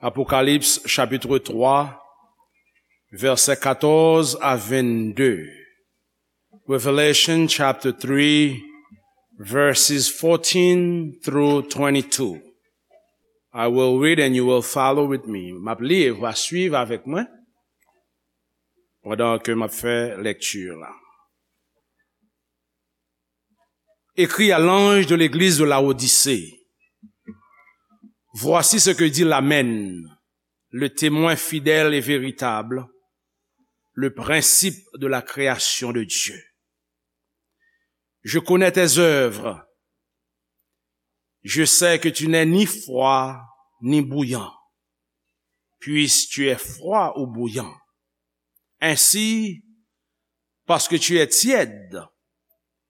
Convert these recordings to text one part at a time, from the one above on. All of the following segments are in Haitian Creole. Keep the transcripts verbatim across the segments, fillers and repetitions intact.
Apocalypse chapitre trois, versets quatorze à vingt-deux. Revelation chapter three, verses fourteen through twenty-two. I will read and you will follow with me. M ap li e w a swiv avèk mwen pandan ke m ap fè lèkti la. Écris à l'ange de l'église de Laodicée. Voici ce que dit l'Amen, le témoin fidèle et véritable, le principe de la création de Dieu. Je connais tes œuvres. Je sais que tu n'es ni froid ni bouillant. Puisque tu es froid ou bouillant. Ainsi, parce que tu es tiède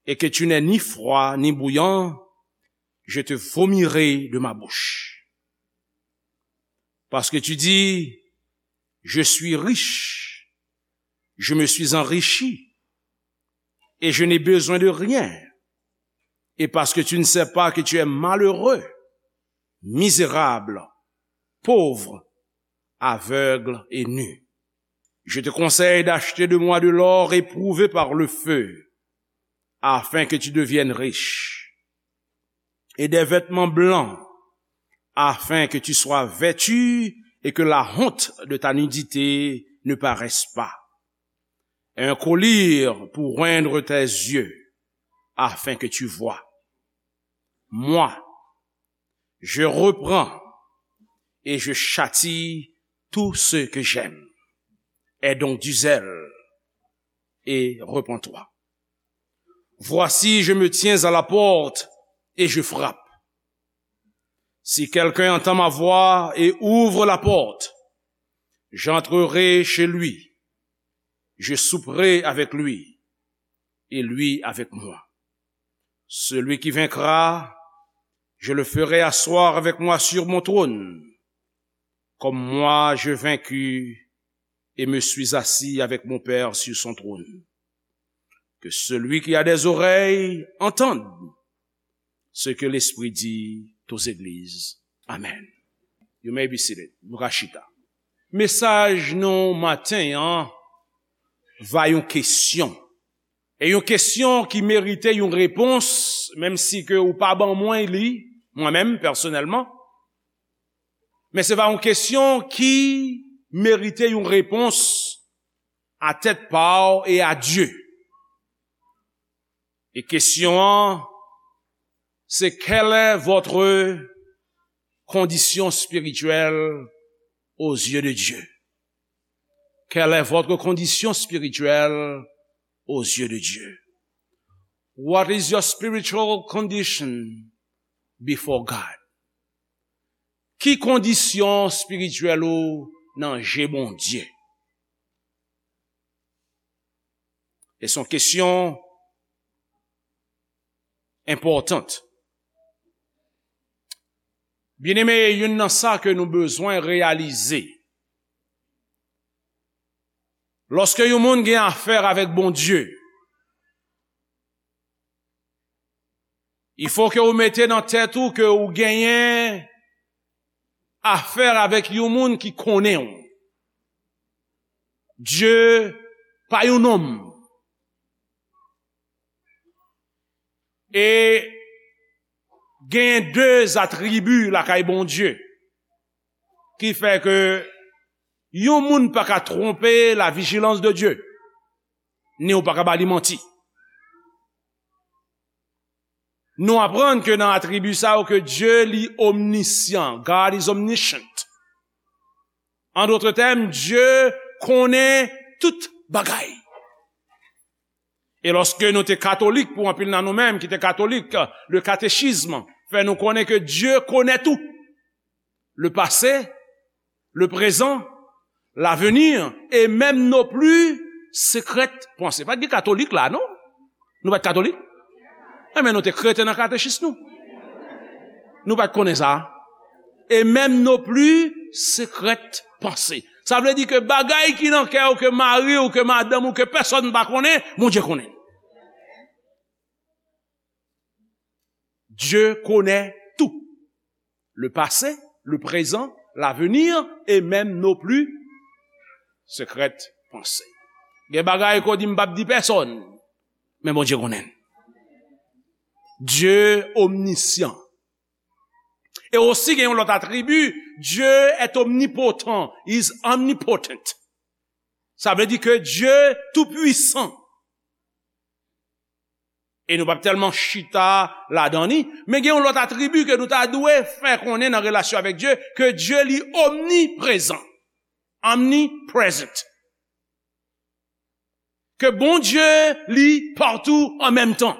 et que tu n'es ni froid ni bouillant, je te vomirai de ma bouche. Parce que tu dis, je suis riche, je me suis enrichi, et je n'ai besoin de rien. Et parce que tu ne sais pas que tu es malheureux, misérable, pauvre, aveugle et nu. Je te conseille d'acheter de moi de l'or éprouvé par le feu, afin que tu deviennes riche, et des vêtements blancs, afin que tu sois vêtu et que la honte de ta nudité ne paraisse pas. Un collier pour oindre tes yeux, afin que tu vois. Moi, je reprends et je châtie tout ce que j'aime. Aie donc du zèle et repens-toi. Voici, je me tiens à la porte et je frappe. Si quelqu'un entend ma voix et ouvre la porte, j'entrerai chez lui, je souperai avec lui et lui avec moi. Celui qui vaincra, je le ferai asseoir avec moi sur mon trône, comme moi j'ai vaincu et me suis assis avec mon Père sur son trône. Que celui qui a des oreilles entende ce que l'Esprit dit aux églises. Amen. You may be seated. Nou ka chita. Mesaj nou maten an va yon kesyon. E yon kesyon ki merite yon repons, menm si ke ou pa ban mwen li, mwen menm, pèsonèlman. Men se va yon kesyon ki merite yon repons a tèt pa w e a Dye. E kesyon an, se: quelle est votre condition spirituelle aux yeux de Dieu? Quelle est votre condition spirituelle aux yeux de Dieu? What is your spiritual condition before God? Ki kondisyon espirityèl ou nan je Bondye? E se yon kesyon enpòtan. Byeneme, youn nan sa ke nou bezwen reyalize, lòske yon moun gen afè avèk Bondye, il faut que ou mete nan tèt ou ke ou genyen afè avèk yon moun ki konnen w. Dye pa yon nonm. E genyen de atribi lakay Bondye ki fè ke yon moun pa ka twonpe la vijilans de Dye, ni ou pa ka ba li manti. Nou aprann ke nan atribi sa yo ke Dye li omnisyan, God is omniscient. An dòt tèm, Dye konnen tout bagay. E lòske nou te katolik, pou anpil nan nou menm ki te katolik, le katechism fè nou konnen ke Dye konnen tou. Le passé, le présent, l'avenir, et même nos plus secrètes pensées. Pa t gen katolik la, non? Nou pa t katolik? Enben, nou te krete nan katechis nou. Nou pa t konnen sa. Et même nos plus secrètes pensées. Sa vle di ke bagay ki nan kè w, ke mari w, ke madanm ou, ke pèsonn pa konnen, Bondye konnen. Dye konnen tou. Le passé, le présent, l'avenir et même nos plus secrètes pensées. Gen bagay ke w di m p ap di pèsonn, men Bondye konnen. Dieu omniscient. E osi gen yon lòt atribi, Dieu est omnipotent, is omnipotent. Sa vle di ke Dieu tou pwisan. E nou p ap tèlman chita ladan li, men gen yon lòt atribi ke nou ta dwe fè konnen nan relasyon avèk Dye, ke Dye li omniprezan, omnipresent. Ke Bondye li patou an menm tan.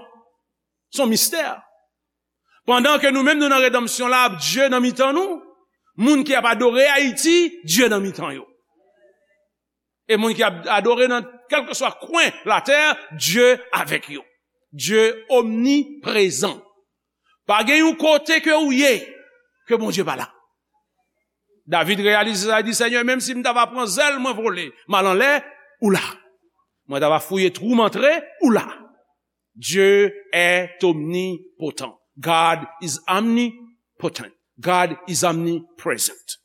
Se yon mistè. Pandan ke nou menm nou nan redanmsyon la, Dye nan mitan nou, moun ki ap adore Ayiti, Dye nan mitan yo. E moun ki ap adore nan kèlkeswa kwen latè, Dye avèk yo. Dye omniprezan. Pa gen yon kote ke ou ye, ke Bondye pa la. David reyalize sa, li di, Senyè, menm si m ta va pran zèl mwen vole, m al anlè, ou la. Mwen ta va fouye twou m antre, ou la. Dieu est omnipotent. God is omnipotent. God is omnipresent.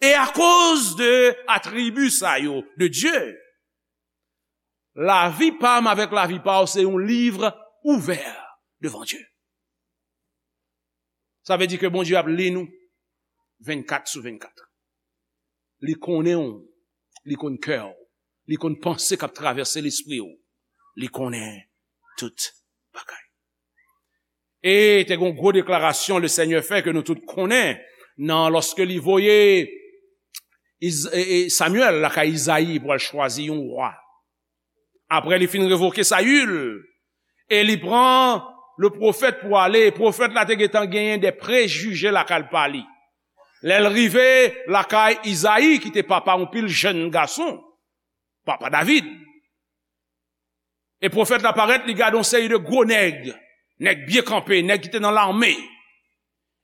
E akoz de atribi sa yo de Dye, lavi pa m avèk lavi pa w se yon liv ouvè devan Dye. Sa vle di ke Bondye ap li nou vennkat sou vennkat. Li konnen w, li konn kè w, li konn panse k ap travèse lespri w. Li konnen tout bagay. E te gen yon gwo deklarasyon Lesenyè fè ke nou tout konnen nan lòske li voye Iz-, e, e, Samyèl lakay Izayi pou al chwazi yon wa. Apre li fin revoke Sayil, e li pran le pwofèt pou ale, e pwofèt la te gentan genyen de prejije lakay pa li. Lè l rive lakay Izayi, ki te papa yon pil jèn gason, papa David, e pwofèt la parèt, li gade yon seri de gwo nèg, nèg byen kanpe, nèg ki te nan lame.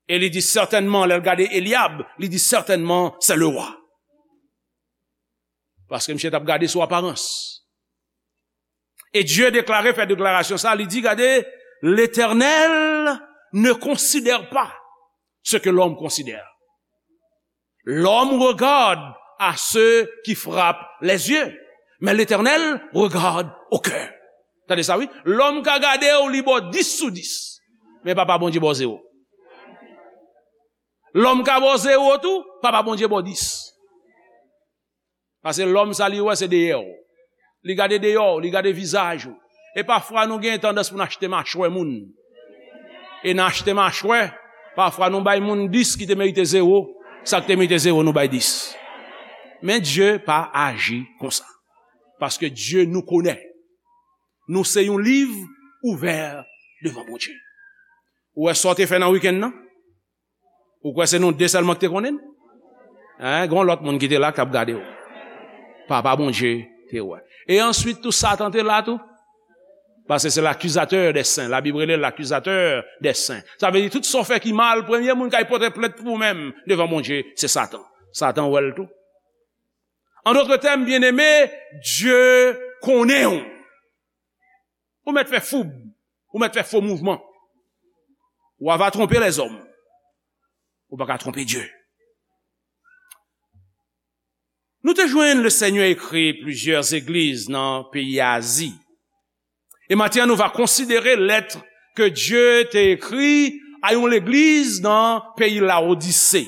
E li di sètènman, lè l gade Elyab, li di sètènman, se le wa. Paske misye t ap gade sou aparans. E Dye deklare, fè deklarasyon sa, li di, gade, L'Éternel ne considère pas ce que l'homme considère. L'homme regarde à ceux qui frappent les yeux, mais l'Éternel regarde au cœur. Tande sa, wi. Lòm ka gade w, li ba w dis sou dis. Men Papa Bondye ba w zewo. Lòm ka ba w zewo tou, Papa Bondye ba w dis. Paske lòm sa li wè se dèyè w. Li gade dèyè w, li gade vizaj ou. E pafwa nou gen tandans pou n achte machwè moun. E nan achte machwè, pafwa nou bay moun dis ki te merite zewo, sa k te merite zewo nou bay dis. Men Dye pa aji konsa. Paske Dye nou konnen. Nou se yon liv ouvè devan Bondye. Ou wè sa w te fè nan wikenn nan? Ou kwè se nou de sèlman ki te konnen l? Hein? Gen yon lòt moun ki te la k t ap gade w. Papa Bondye te wè. E answit tou Satan te la tou. Paske se l'accusateur des saints. Labib rele l l'accusateur des saints. Sa vle di tout sa w fè ki mal, premye moun k al pote plent pou ou menm devan Bondye, se Satan. Satan wè l tou. En d'autres termes, byeneme, Dye konnen w. Ou mèt fè foub, ou mèt fè fo mouvman. Ou va twonpe lèzòm. Ou pa ka twonpe Dye. Nou te jwenn Lesenyè ekri plizyè legliz nan peyi Azi. E maten an, nou va konsidere lèt ke Dye te ekri a yon legliz nan peyi Lawodise.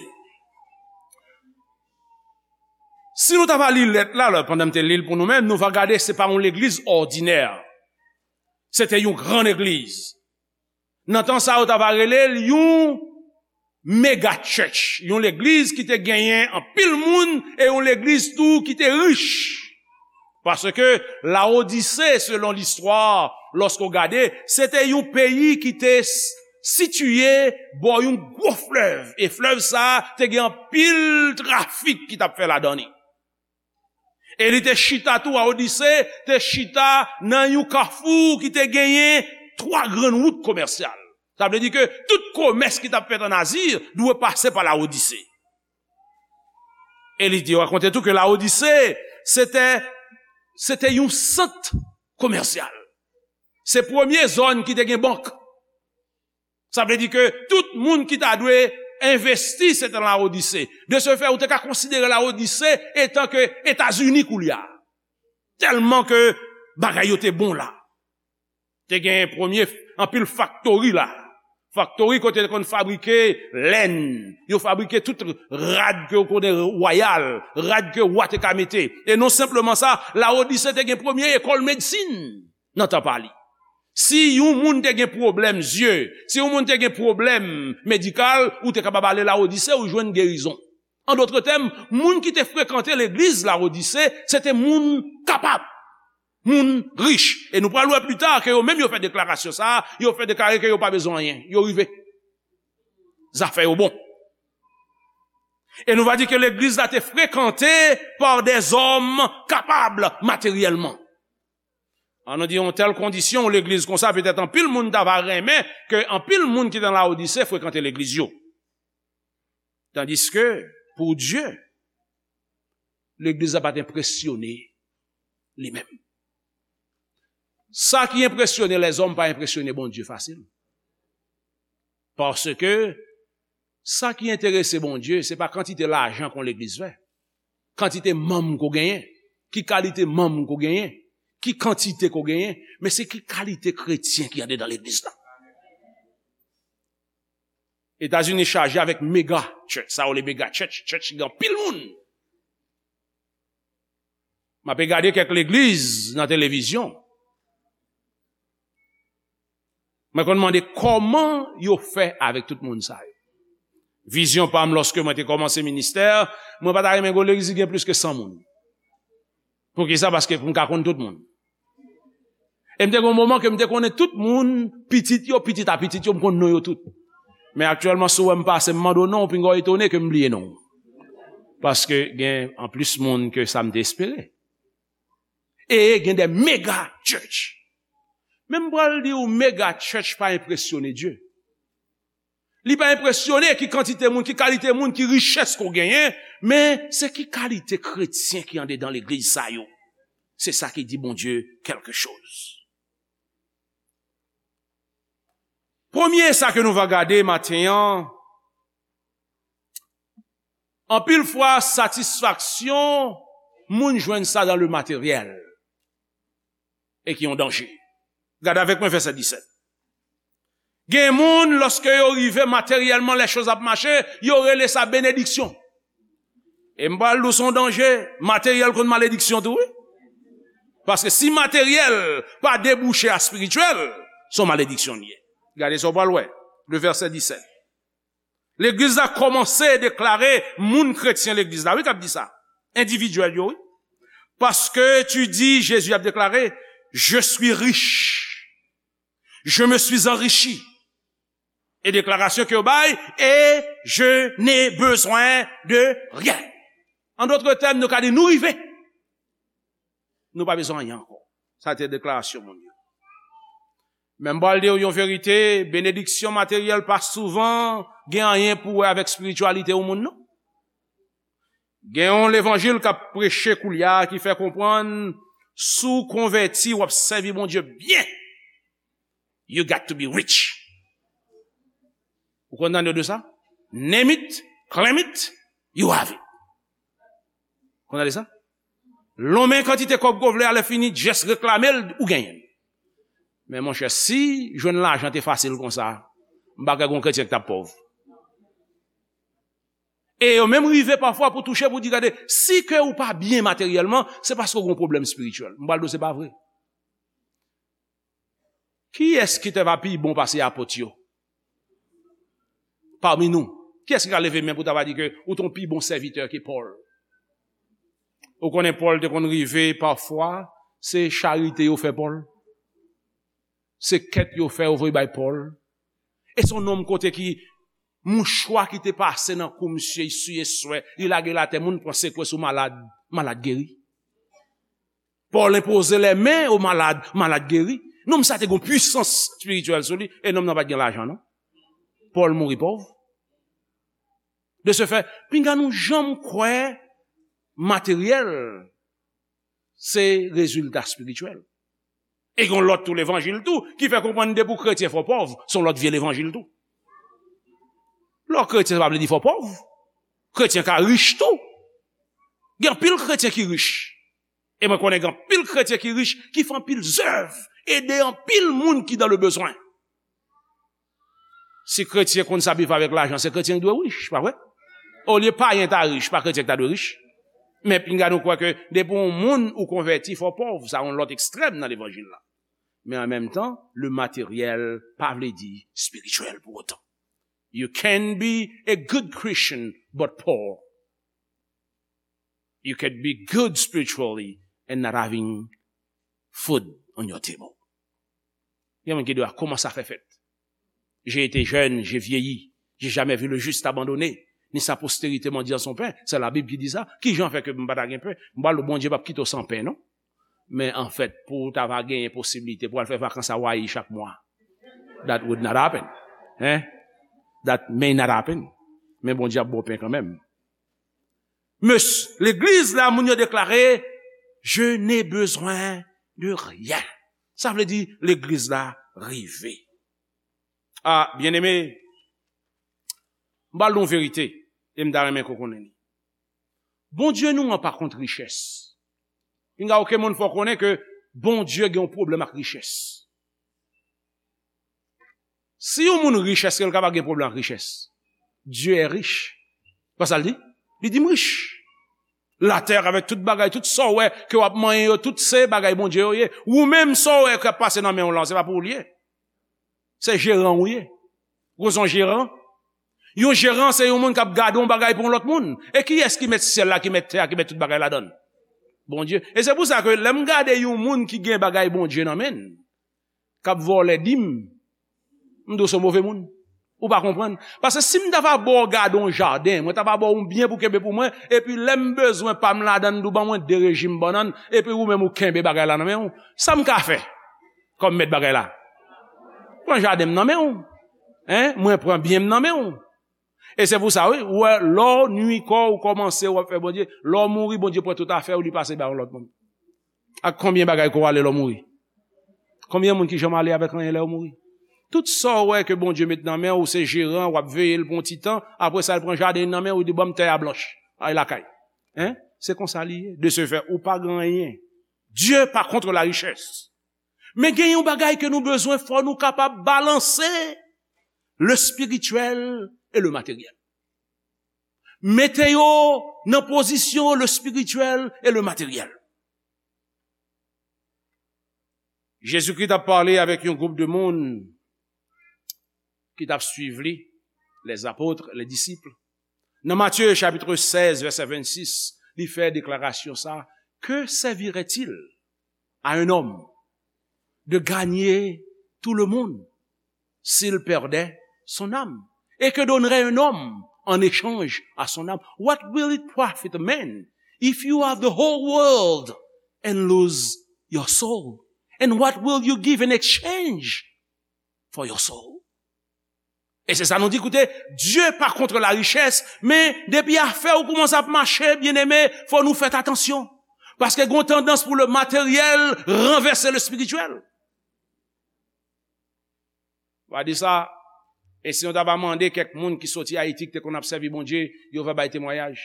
Si nou ta va li lèt la, lè, pandan m te li l pou nou menm, nou va gade se pa yon legliz òdinè. Se te yon gran legliz. Nan tan sa, yo ta va rele l yon mega church, yon legliz ki te genyen anpil moun e yon legliz tou ki te rich. Paske Lawodise, selon listwa, lòske w gade, se te yon peyi ki te s-, sitiye bò yon gwo flèv. E flèv sa a te gen anpil trafik ki t ap fè ladan li. E li te chita tou, Lawodise te chita nan yon kafou ki te genyen twa grann wout komèsyal. Sa vle di ke tout komès ki t ap fèt ann Azi dwe pase pa Lawodise. E li te rakonte tou ke Lawodise, se te, se te yon sant komèsyal. Se premye zòn ki te gen bank. Sa vle di ke tout moun ki ta dwe envesti, se te Lawodise. De ce fait, ou te ka konsidere Lawodise etan ke Etazini koulye a. Tèlman ke bagay yo te bon la. Te gen premye anpil faktori la. Faktori kote yo te konn fabrike lèn, yo fabrike tout rad ke yo konnen wayal, rad ke wa te ka mete. E non senpleman sa, Lawodise te gen premye ekòl medsin nan tan pa li. Si yon moun te gen pwoblèm zye, si yon moun te gen pwoblèm medikal, ou te kapab ale Lawodise, ou jwenn gerizon. An dòt tèm, moun ki te frekante legliz Lawodise, se te moun kapab, moun rich. E nou pral wè pli ta ke yo menm yo fè deklarasyon sa a, yo fè deklare ke yo pa bezwen anyen, yo rive. Zafè yo bon. E nou va di ke legliz la te frekante pa dèzòm kapab materyèlman. An nou di yon tèl kondisyon, yon legliz konsa, petèt anpil moun ta va renmen ke anpil moun ki nan Lawodise frekante legliz yo. Tandiske, pou Dye, legliz la pa t enpresyone li menm. Sa ki enpresyone lèzòm pa enpresyone Bondye fasil. Paske sa ki enterese Bondye, se pa kantite lajan ke yon legliz fè, kantite manm ke w genyen, ki kalite manm ke w genyen, ki kantite ke w genyen, men se ki kalite kretyen ki andedan legliz la. Etazini chaje avèk mega church, sa yo rele mega church, church ki gen anpil moun. M ape gade kèk legliz nan televizyon. Mwen konn mande kòman yo fè avèk tout moun sa yo. Vizyon pa m, lòske mwen te kòmanse ministè, mwen pa ta renmen gen yon legliz ki gen plis ke san moun. Poukisa? Paske pou m ka konn tout moun. E m te gen yon moman ke m te konnen tout moun, pitit yo, pitit a pitit yo, m konn non yo tout. Men aktyèlman, si w wè m pase, m mande w non, w pinga w etone ke m bliye non w. Paske gen anplis moun ke sa m te espere. E gen de mega church. Men m pral di w, mega church pa enpresyone Dye. Li pa enpresyone ki kantite moun, ki kalite moun, ki richès ke w genyen, men se ki kalite kretyen ki andedan legliz sa yo. Se sa ki di Bondye kèlke choz. Premye sa ke nou va gade maten an, anpil fwa satisfaksyon moun jwenn sa dan le materyèl. E ki yon danje. Gade avèk mwen vèsè disèt. Gen moun, lòske yo rive materyèlman, lè choz ap mache, yo rele sa benediksyon. E m pral di w se yon danje, materyèl konn malediksyon tou, wi. Paske si materyèl pa debouche a espirityèl, se yon malediksyon li ye. Gade sa w pral wè, le vèsè disèt. Legliz la kòmanse deklare moun kretyen legliz la, wi, k ap di sa. Endividyèl yo, wi. Parce que tu dis, Jésus ap deklare, je suis riche. Je me suis enrichi. E deklarasyon ke yo bay, et je n'ai besoin de rien. An dòt tèm, nou ka di nou rive. Nou pa bezwen anyen ankò. Sa te deklarasyon moun yo. Men m pral di w yon verite, benediksyon materyèl pa souvan gen anyen pou wè avèk espirityalite yon moun, non. Gen yon levanjil k ap preche koulye a ki fè konprann, si w konvèti, w ap sèvi Bondye byen. You got to be rich. Ou konn tande de sa? Name it, claim it, you have it. Konn tande sa? Lonmen kantite kòb ke w vle a, lè fini, just reklame l, ou genyen l. Men monchè, si jwenn lajan te fasil konsa, m pa kwè gen yon kretyen ki t ap pòv. E yo menm rive pafwa pou touche, pou di, gade, si ke ou pa byen materyèlman, se paske w gen yon pwoblèm espirityèl. M pral di w se pa vre. Kiyès ki te va pi bon pase apot yo? Pami nou, kiyès ki ka leve men pou ta va di ke ou te yon pi bon sèvitè ke Pòl? Ou konnen Pòl te konn rive pafwa, se charite yo fè Pòl. Se kèt yo fè yo voye bay Pòl. E se yon nonm kote ki mouchwa ki te pase nan kou misye, li siye swè, li lage l atè, moun pran sekwe sou malad, malad geri. Pòl enpoze lèmen o malad, malad geri. Nonm sa te gen pwisans espirityèl sou li, e nonm nan pa t gen lajan, non. Pòl mouri pòv. De ce fait, pinga nou janm kwè materyèl se rezilta espirityèl. E gen yon lòt tou levanjil tou ki fè konprann depi w kretyen fò w pòv, se yon lòt vye levanjil tou. Lè w kretyen, sa pa vle di fò w pòv. Kretyen ka rich tou. Gen anpil kretyen ki rich. E mwen konnen gen anpil kretyen ki rich, ki fè anpil zèv, ede anpil moun ki dans le besoin. Si kretyen konn sa bif avèk lajan, se kretyen ki dwe rich, pa vre? Olye payen ta rich, pa kretyen ki ta dwe rich. Men pinga nou kwè ke depi yon moun ou konvèti, fò w pòv, sa yon lòt ekstrèm nan levanjil la. Men an menm tan, le matériel pa vle di espirityèl pou otan. You can be a good Christian but poor. You can be good spiritually and not having food on your table. Gen moun ki di, "Ah, comment ça fait fait? J'ai été jeune, j'ai vieilli, j'ai jamais vu le juste abandonné, ni sa postérité mendiant son pain." C'est la Bible qui dit ça. Ki jan fè ke m pa ta gen pen? M pral di w, Bondye p ap kite w san pen, non. Men anfèt, pou w ta va genyen posiblite pou w al fè vakans Hawaii chak mwa, that would not happen. Hein? That may not happen. Men Bondye ap ba w pen kanmenm. Mes, legliz la, moun yo deklare, "Je n'ai besoin de rien." Sa vle di, legliz la rive. Ah, byeneme, m pral di w yon verite, e m ta renmen ke w konnen li. Bondye nou an pa kont richès. Pinga okenn moun fè w konnen ke Bondye gen yon pwoblèm ak richès. Si yon moun rich, èske l kapab gen pwoblèm ak richès? Dieu est riche. Pa sa l di? Li di, "M rich." Latè avèk tout bagay, tout sa w wè ke w ap manyen yo, tout se bagay Bondye yo ye. Ou menm, sa w wè k ap pase nan men w lan, se pa pou ou l ye. Se jeran w ye. Ou konn se yon jeran? Yon jeran, se yon moun k ap gade yon bagay pou yon lòt moun. E kiyès ki mèt syèl la, ki mèt tè a, ki mèt tout bagay ladan l? Bondye. E se pou sa ke lè m gade yon moun ki gen bagay Bondye nan men l, k ap vòlè dim, m di w se yon move moun. Ou pa konprann. Paske si m ta va ba w gade yon jaden, mwen ta va ba w yon byen pou kenbe pou mwen, epi lè m bezwen pa m ladan l, m di w ban mwen de rejim bannann, epi ou menm ou kenbe bagay la nan men w, sa m ka fè kòm mèt bagay la? Pran jaden m nan men w. Hein? Mwen pran byen m nan men w. E se pou sa, wi, ou wè, lè w nui kò w, ou kòmanse, w ap fè Bondye, lè w mouri, Bondye pran tout afè w, li pase ba yon lòt moun. Ak konbyen bagay ke w ale lè w mouri? Konbyen moun ki janm ale avèk anyen lè yo mouri? Tout sa w wè ke Bondye met nan men w, ou se jeran, w ap veye l pou yon ti tan, apre sa, l pran jaden nan men w, li di, "Ban m tè a blanch, al lakay." Hein? Se konsa li ye. De ce fait, ou pa gen anyen. Dieu pa contre la richesse. Men gen yon bagay ke nou bezwen, fò nou kapab balanse le spirituel et le matériel. Mete yo nan pozisyon le spirituel et le matériel. Jezikri t ap pale avèk yon gwoup de moun ki t ap swiv li, les apôtres, les disciples. Nan Matye chapit sèz, vèsè vennsis, li fè deklarasyon sa, "Que servirait-il à un homme de gagner tout le monde s'il perdait son âme? Et que donnerait un homme en échange à son âme? What will it profit a man if you have the whole world and lose your soul? And what will you give in exchange for your soul?" E se sa nou di, koute, Dye pa kont la richès, men depi afè w kòmanse ap mache, byeneme, fò nou fè atansyon. Paske gen yon tandans pou le matériel ranvèse le spirituel. Va di sa, e si nou ta va mande kèk moun ki soti Ayiti, ki te konn ap sèvi Bondye, yo va bay temwayaj.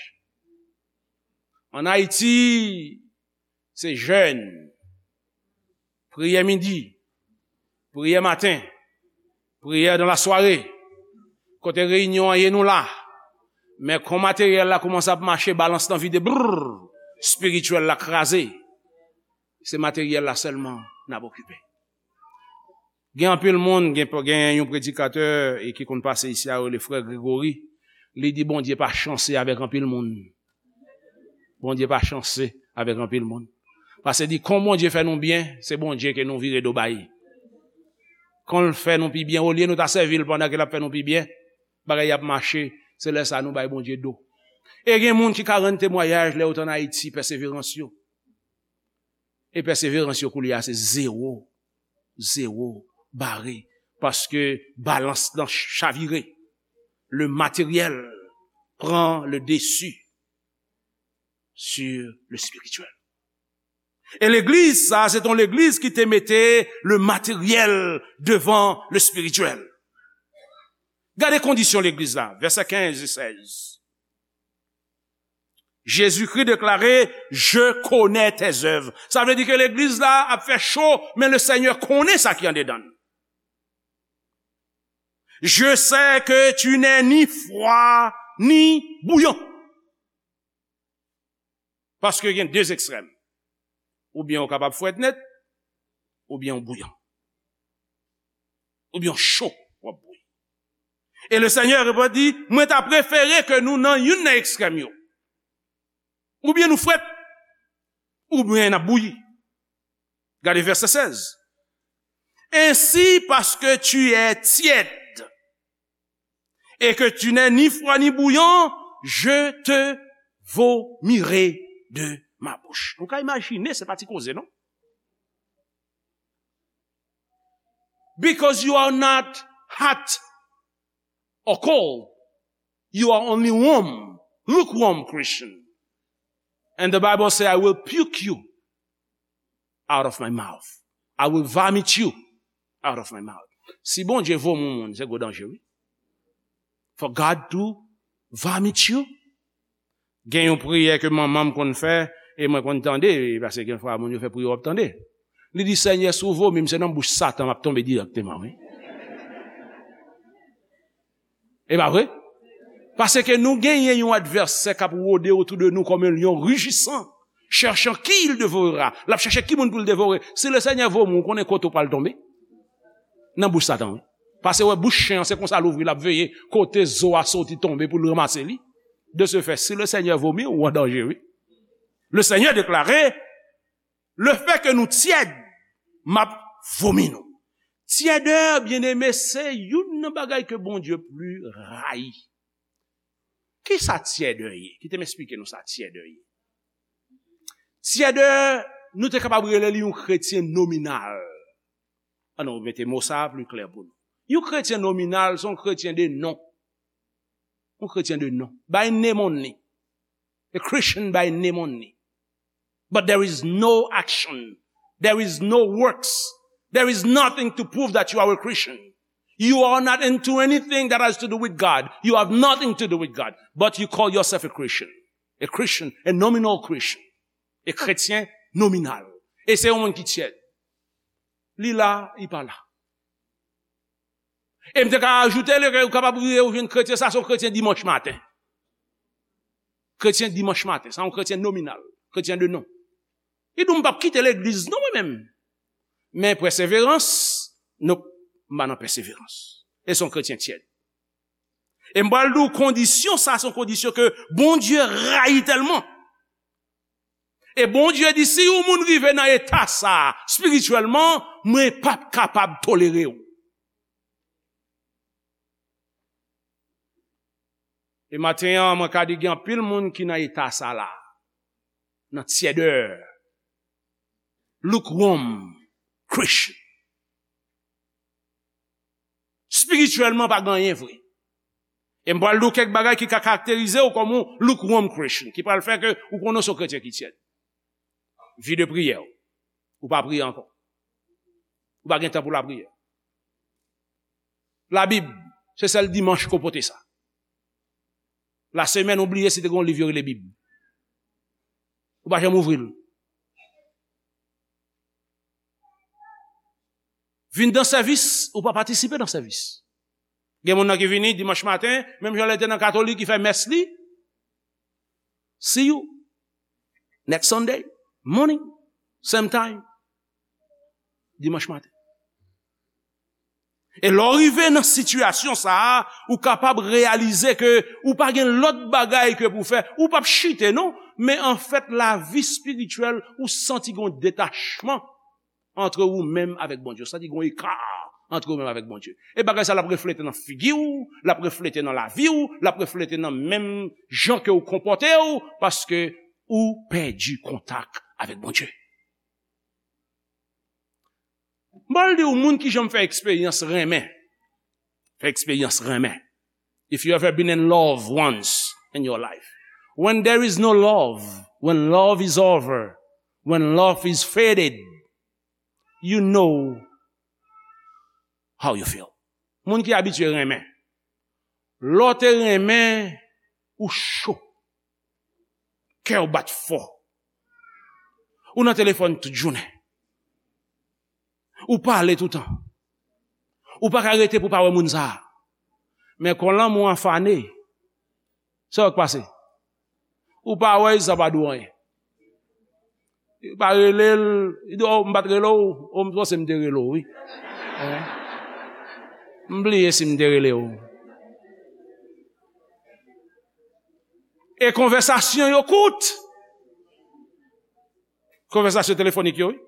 Ann Ayiti, se jèn, priyè midi, priyè maten, priyè dan lasware, kote reyinyon an ye nou la. Men kon materyèl la kòmanse ap mache, balans lan vide, brrr, espirityèl la kraze. Se materyèl la sèlman n ap okipe. Gen anpil moun, gen, gen yon predikatè e ki konn pase isi a, yo rele frè Gregory. Li di Bondye pa chanse avèk anpil moun. Bondye pa chanse avèk anpil moun. Paske di, kon Bondye fè nou byen, se Bondye ke nou vire do bay. Kon l fè nou pi byen, olye nou ta sèvi l pandan ke l ap fè nou pi byen, bagay ap mache, se lè sa nou bay Bondye do. E gen moun ki ka rann temwayaj lè yo t ann Ayiti, pèseverans yo. E pèseverans yo koulye a se zewo, zewo, bare, paske balans lan chavire. Le matériel pran le dessus sur le spirituel. E legliz sa, se t on legliz ki te mete le matériel devan le spirituel. Gade kondisyon legliz la, vèsè kenz e sèz. Jésus-Christ déclarait, Je connais tes œuvres. Sa vle di ke legliz la ap fè cho, men le Seigneur konnen sa ki andedan. Je sais que tu n'es ni froid ni bouillant. Paske gen de ekstrèm. Oubyen ou kapab frèt nèt, oubyen ou bouyan. Oubyen ou cho, w ap bouyi. E le Seigneur reponn di, mwen ta prefere ke nou nan youn nan ekstrèm yo. Oubyen nou frèt, oubyen n ap bouyi. Gade vèsè sèz. Ainsi, parce que tu es tiède et que tu n'es ni froid ni bouillant, je te vomirai de ma bouche. Nou ka imajine, se pa ti koze, non? Because you are not hot or cold, you are only warm, lukewarm Christian. And the Bible says, I will puke you out of my mouth. I will vomit you out of my mouth. Si Bondye vomi yon moun, se gwo danje, wi. For God to vomit you. Gen yon priyè ke manman m konn fè, e mwen konn tande, paske gen fwa moun yo fè priyè, w ap tande. Li di, Senyè, si w vomi m, se nan bouch Satan m ap tonbe dirèkteman, wi. E pa vre? Paske nou genyen yon advèsè k ap wode otou de nou kòm yon lyon rijisan, chèchan ki il devorera. L ap chèche ki moun pou l devore. Si le Senyè vomi w, ou konnen kote w pral tonbe? Nan bouch Satan, wi. Paske wè bouch chen an, se konsa l ouvri, l ap veye kote zo a soti tonbe pou l ranmase li. De ce fait, si le Senyè vomi w, ou an danje, wi. Le Senyè deklare, le fè ke nou tyèd, m ap vomi nou. Tyèdè, byeneme, se youn nan bagay ke Bondye pli rayi. Kisa tyèdè ye? Kite m esplike nou sa tyèdè ye. Tyèdè, nou te kapab rele li yon kretyen nominal. Ann nou mete mo sa a pli klè pou nou. Yon kretyen nominal, se yon kretyen de non. Yon kretyen de non. By name only. A Christian by name only. But there is no action. There is no works. There is nothing to prove that you are a Christian. You are not into anything that has to do with God. You have nothing to do with God. But you call yourself a Christian. A Christian, a nominal Christian. A kretyen nominal. E se yon moun ki tyèd. Li la, li pa la. E m te ka ajoute, li, ou kapab rive ou jwenn kretyen, sa se yon kretyen dimanch maten. Kretyen dimanch maten, sa yon kretyen nominal, kretyen de non. Li di, m p ap kite legliz non, mwen menm. Men pèseverans, non, m pa nan pèseverans. E se yon kretyen tyèd. E m pral di w kondisyon sa, se yon kondisyon ke Bondye rayi tèlman. E Bondye di, si yon moun rive nan eta sa, espirityèlman, mwen p ap kapab tolere w. E maten an, mwen ka di gen anpil moun ki nan eta sa la, nan tyèdè, lukewarm Christian. Espirityèlman, pa gen anyen vre. E m pral di w kèk bagay ki ka karakterize w kòm yon lukewarm Christian, ki pral fè ke ou konnen w se yon kretyen ki tyèd. Vi de priyè w. Ou pa priye ankò. Ou pa gen tan pou lapriyè. Labib, se sèl dimanch ke w pote sa. Lasemèn, ou bliye si te gen yon liv yo rele Bib. Ou pa janm ouvri l. Vin nan sèvis, ou pa patisipe nan sèvis. Gen moun nan ki vini dimanch maten, menm jan lè te nan katolik, ki fè mès li. See you next Sunday morning, same time. Dimanch maten. E lè w rive nan sitiyasyon sa a, ou kapab reyalize ke ou pa gen lòt bagay ke pou fè. Ou p ap chite, non. Men anfèt, lavi espirityèl, ou santi gen yon detachman antre ou menm avèk Bondye. Ou santi gen yon eka antre ou menm avèk Bondye. E bagay sa l ap reflete nan figi w, l ap reflete nan lavi w, l ap reflete nan menm jan ke w konpòte w, paske ou pèdi kontak avèk Bondye. M pral di w, moun ki janm fè eksperyans renmen, fè eksperyans renmen. If you ever been in love once in your life, when there is no love, when love is over, when love is faded, you know how you feel. Moun ki abitye renmen, Lè w te renmen, ou cho. Kè w bat fò. Ou nan telefòn tout jounen. Ou pale toutan. Ou pa ka rete pou pa wè moun sa a. Men kon lanmou an fane, sa w k pase? Ou pa wè l, sa pa di w anyen. Li pa rele l, li di, "Oh, m pa t rele w, oh, m panse m te rele w, wi." Hein? M bliye si m te rele w. E konvèsasyon yo kout. Konvèsasyon telefonik yo, wi.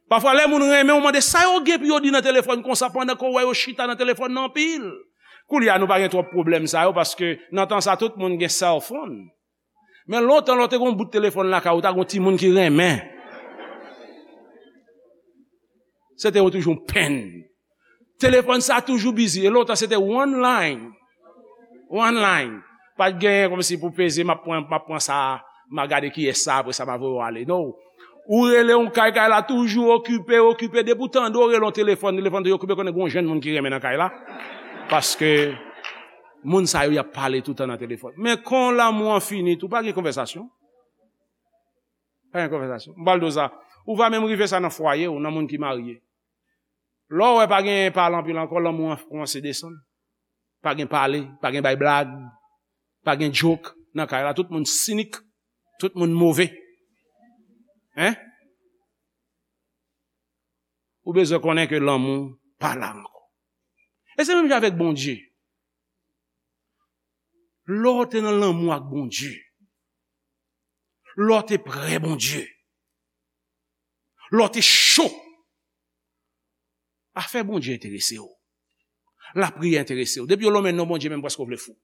Pafwa, lè moun renmen w, mande sa yo gen pou yo di nan telefòn konsa pandan ke w wè yo chita nan telefòn nan anpil. Koulye a, nou pa gen twòp pwoblèm sa yo, paske nan tan sa, tout moun gen cell phone. Men lontan, lè w te gen yon bout telefòn lakay ou, ta gen yon timoun ki renmen. Se te yon toujou yon penn. Telefòn sa toujou busy. E lontan, se te one line. One line. Pa t genyen kòmsi pou peze, m ap pran, m ap pran sa, m a gade kiyès sa, apre sa, m a voye w ale. Non. Ou rele yon kay, kay la toujou okipe, okipe. Depi w tande w rele yon telefòn, telefòn toujou okipe, konnen gen yon jèn moun ki renmen nan kay la. Paske moun sa yo, y ap pale toutan nan telefòn. Men kon lanmou an fini, tou pa gen konvèsasyon. Pa gen konvèsasyon. M pral di w sa. Ou va menm rive sa nan fwaye w, nan moun ki marye. Lè w wè pa gen pale anpil ankò, lanmou an kòmanse desann. Pa gen pale, pa gen bay blag, pa gen joke nan kay la. Tout moun sinik, tout moun move. Hein? Ou bezwen konnen ke lanmou pa la ankò. E se menm jan avèk Bondye. Lè w te nan lanmou ak Bondye, lè w te prè Bondye, lè w te cho, afè Bondye enterese w. Lapriyè enterese w. Depi yo lonmen non Bondye, menm prèske w vle fou.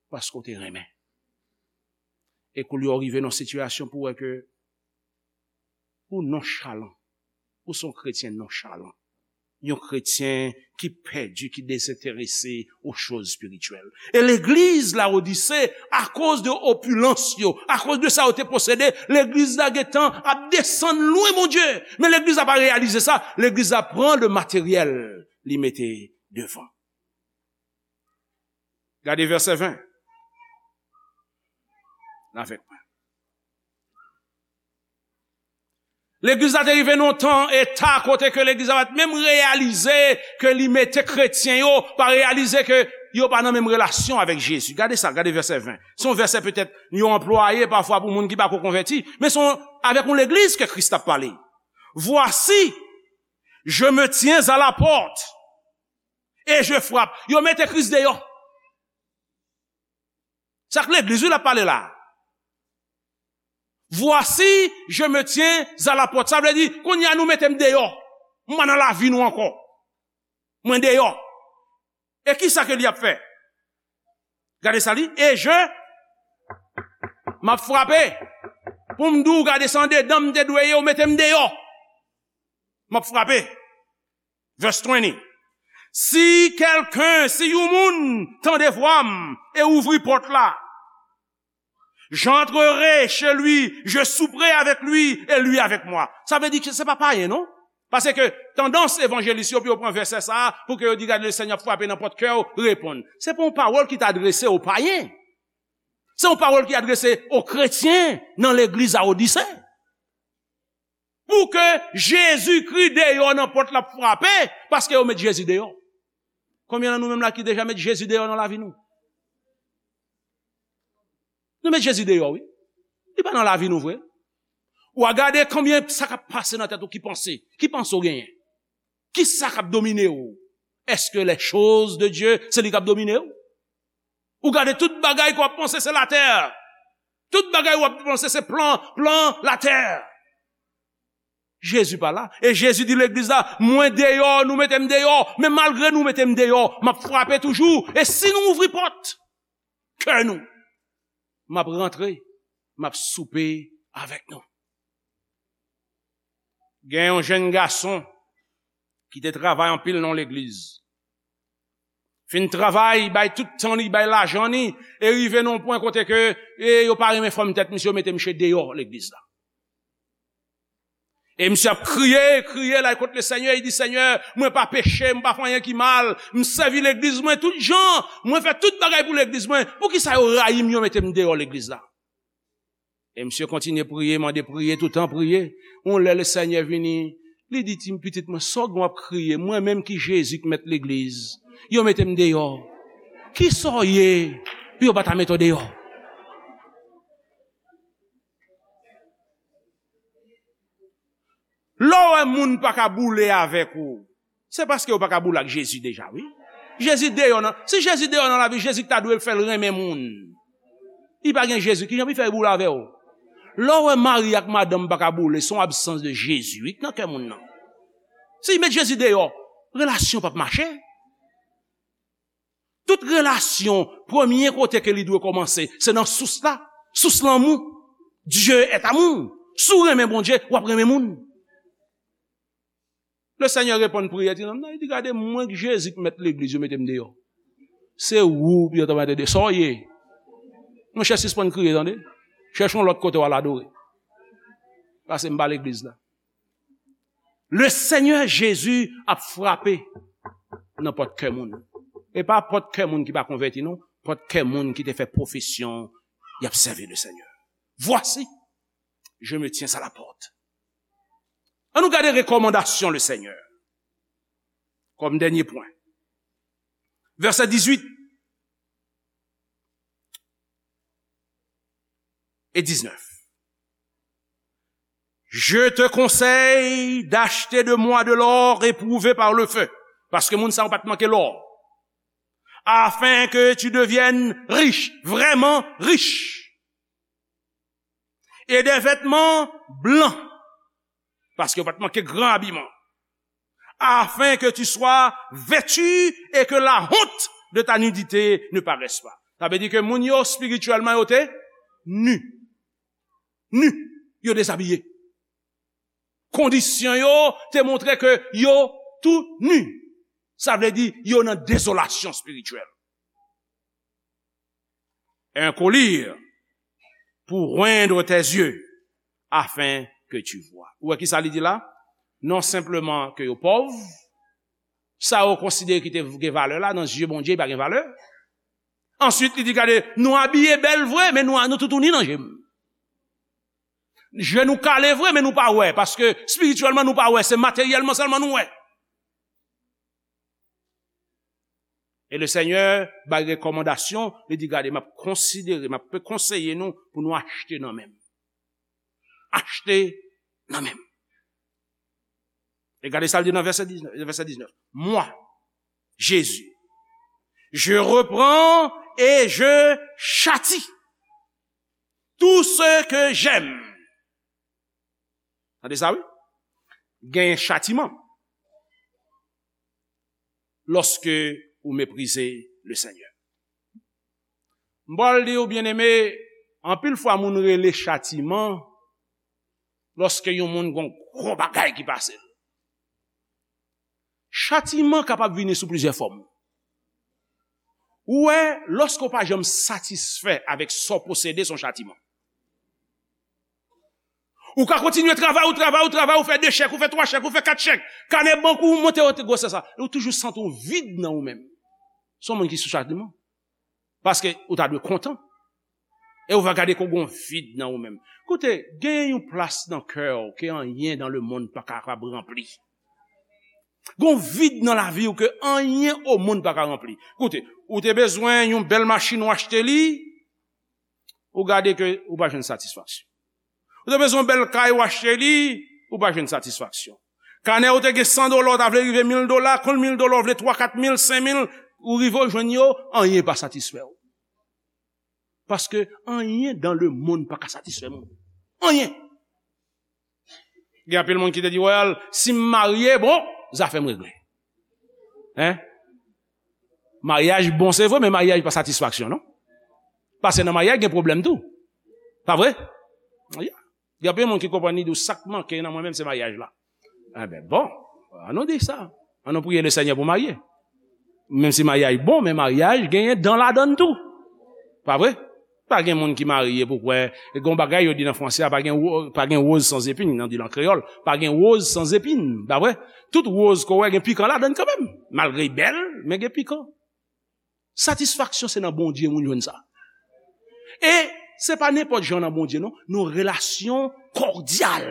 Paske w te renmen. E koulye a w rive nan yon sitiyasyon pou w wè ke ou nonchalan. Ou se yon kretyen nonchalan. Yon kretyen ki pèdi, ki dezenterese aux choses spirituelles. E legliz Lawodise, akoz de opilans yo, akoz de sa yo te posede, legliz la gentan ap desann lwen Bondye. Men legliz la pa reyalize sa. Legliz la pran le materyèl, li mete devan. Gade vèsè ven. Avèk mwen. Legliz la te rive nan yon tan, eta kote ke legliz la pa t menm reyalize ke li mete kretyen yo, pa reyalize ke yo pa nan menm relasyon avèk Jezi. Gade sa, gade vèsè ven. Se yon vèsè petèt yo anplwaye pafwa pou moun ki pa ko konvèti, men se yon, avèk yon legliz ke Kris t ap pale. Voici, je me tiens à la porte et je frappe. Yo mete Kris deyò. Sa k legliz, wi, l ap pale la. Voici, je me tiens à la porte. Sa vle di, kounye a nou mete m deyò. M pa nan lavi nou ankò. Mwen deyò. E ki sa ke li ap fè? Gade sa li. Et je, m ap frape. Pou m di w, gade sa andedan m te dwe ye, ou mete m deyò. M ap frape. Verse twenty. Si kèlken, si yon moun tande vwa m e ouvri pòt la, j'entrerai chez lui, je souperai avec lui et lui avec moi. Sa vle di ke se pa payen, non? Paske tandans evanjelis yo pou yo pran vèsè sa a, pou ke yo di, "Gade, Lesenyè ap frape nan pòt kè w, reponn." Se pa yon pawòl ki t adrese o payen. Se yon pawòl ki adrese o kretyen nan legliz Lawodise. Pou ke Jezikri deyò nan pòt la ap frape, paske yo met Jezi deyò. Konbyen nan nou menm la ki deja met Jezi deyò nan lavi nou? Nou met Jezi deyò, wi. Li pa nan lavi nou vre. Ou a gade konbyen sa k ap pase nan tèt ou ki panse, ki panse w genyen. Ki sa k ap domine w? Èske les choses de Dieu, se li k ap domine w? Ou gade tout bagay ke w ap panse se latè. Tout bagay w ap panse se plan, plan latè. Jezi pa la. E Jezi di legliz la, "Mwen deyò, nou mete m deyò. Men malgre nou mete m deyò, m ap frape toujou. E si nou ouvri pòt kè nou, m ap rantre, m ap soupe avèk nou." Gen yon jèn gason ki te travay anpil nan legliz. Fin travay, bay tout tan li, bay lajan li, e rive nan yon pwen kote ke, e yo pa renmen fòm tèt misye, yo mete misye deyò legliz la. E misye ap kriye, kriye, l al kot Lesenyè, li di, Senyè, mwen pa peche, m pa fè anyen ki mal, m sèvi legliz mwen tout jan, mwen fè tout bagay pou legliz mwen, poukisa yo rayi m, yo mete m deyò legliz la? E misye kontinye priye, mande priye, toutan priye. Yon lè Lesenyè vini, li di, ti pitit mwen, sa w gen w ap kriye, mwen menm ki Jezi k mèt legliz, yo mete m deyò. Kisa w ye pou yo pa ta mete w deyò? Lè w wè moun pa ka boule avèk ou, se paske yo pa ka boule ak Jezi deja, wi. Jezi deyò nan, si Jezi deyò nan lavi, Jezi ta dwe fè l renmen moun. Li pa gen Jezi, kijan pou l fè boule avè w? Lè w wè mari ak madanm pa ka boule, se yon absans de Jezi, wi, nan kè moun nan. Si l met Jezi deyò, relasyon p ap mache. Tout relasyon, premye kote ke li dwe kòmanse, se nan sous la. Sous lanmou. Dieu est amour. Si w renmen Bondye, w ap renmen moun. Lesenyè reponn priyè ti nonm nan, li di, gade, mwen k Jezi k mèt legliz, yo mete m deyò. Se ou pou yo ta mete deyò. Sa w ye? Monchè, sispann kriye, tande. Chèche yon lòt kote w al adore. Pase m pa legliz la. Le Senyè Jezi ap frape nan pòt kè moun. E pa pòt kè moun ki pa konvèti, non. Pòt kè moun ki te fè pwofesyon y ap sèvi le Senyè. Voici, je me tiens à la porte. Ann nou gade rekòmandasyon le Senyè. Kòm dènye pwen. Vèsè dizuit e diznèf. Je te conseille d'acheter de moi de l'or éprouvé par le feu. Paske moun sa yo pa t manke lò. Afin que tu deviennes riche, vraiment riche. Et des vêtements blancs. Paske yo pa t manke gran abiman. Afin que tu sois vêtu et que la honte de ta nudité ne paraisse pas. Sa vle di ke moun yo espirityèlman yo te nu. Nu. Yo dezabiye. Kondisyon yo te montre ke yo tou nu. Sa vle di yo nan dezolasyon espirityèl. Un collier pour oindre tes yeux, afin que tu vois. Ou wè ki sa li di la? Non senpleman ke yo pòv, sa yo konsidere ki te gen valè la, nan zye Bondye, li pa gen valè. Answit, li di, gade, nou abiye bèl vre, men nou, nou toutouni nan je m. Je nou kale vre, men nou pa wè, paske espirityèlman nou pa wè, se materyèlman sèlman nou wè. E le Senyè bay rekòmandasyon, li di, gade, m ap konsidere, m ap konseye nou pou nou achte nan men m. Achte nan men m. E gade sa l di nan vèsè diznèf, vèsè diznèf. Moi, Jésus, je reprends et je châtie tout ce que j'aime. Tande sa, wi. Genyen chatiman lòske ou meprize le Senyè. M pral di w, byeneme, anpil fwa moun rele chatiman lòske yon moun gon gwo bagay ki pase l. Chatiman kapab vini sou plizyè fòm. Ou wè, lòske w pa janm satisfè avèk sa w posede, se yon chatiman. Ou ka kontinye travay, ou travay, ou travay, ou fè de chèk, ou fè twa chèk, ou fè kat chèk. Kanè bank ou monte, ou te gwosè sa. E ou toujou santi w vid nan ou menm. Se yon moun ki sou chatiman. Paske ou ta dwe kontan. E ou va gade ke w gen yon vid nan ou menm. Koute, genyen yon plas nan kè w ke anyen dans le monde pa kapab ranpli. Gen yon vid nan lavi w ke anyen o monn pa ka ranpli. Koute, ou te bezwen yon bèl machin, ou achte li, ou gade ke ou pa jwenn satisfaksyon. Ou te bezwen yon bèl kay, ou achte li, ou pa jwenn satisfaksyon. Kanè ou te gen san dola, ou ta vle rive mil dola, konn mil dola, ou vle twa, kat mil, senk mil, ou rive ou jwenn yo, anyen pa satisfè w. Paske anyen dans le monde pa ka satisfè moun. Anyen. Gen anpil moun ki te di, well, si m marye, bon, zafè m regle. Hein? Maryaj bon, se vre, men maryaj pa satisfaksyon, non? Paske nan maryaj, gen pwoblèm tou. Pa vre? Yeah. Gen anpil moun ki konprann li di w sa k manke nan mwen menm se maryaj la. Enben, bon, ann nou di sa. Ann nou priye le Senyè pou marye. Menm si maryaj bon, men maryaj genyen dan ladan l tou. Pa vre? Pa gen moun ki marye pou kwè, gen yon bagay yo di nan franse a, pa gen, wo- pa gen woz san zepin, nan di l an kreyòl, pa gen woz san zepin, pa vre? Tout woz ke w wè gen pikan ladan l kanmenm. Malgre l bèl, men gen pikan. Satisfaksyon se nan Bondye moun jwenn sa. E se pa nenpòt jan nan Bondye non, nan relasyon kòdyal,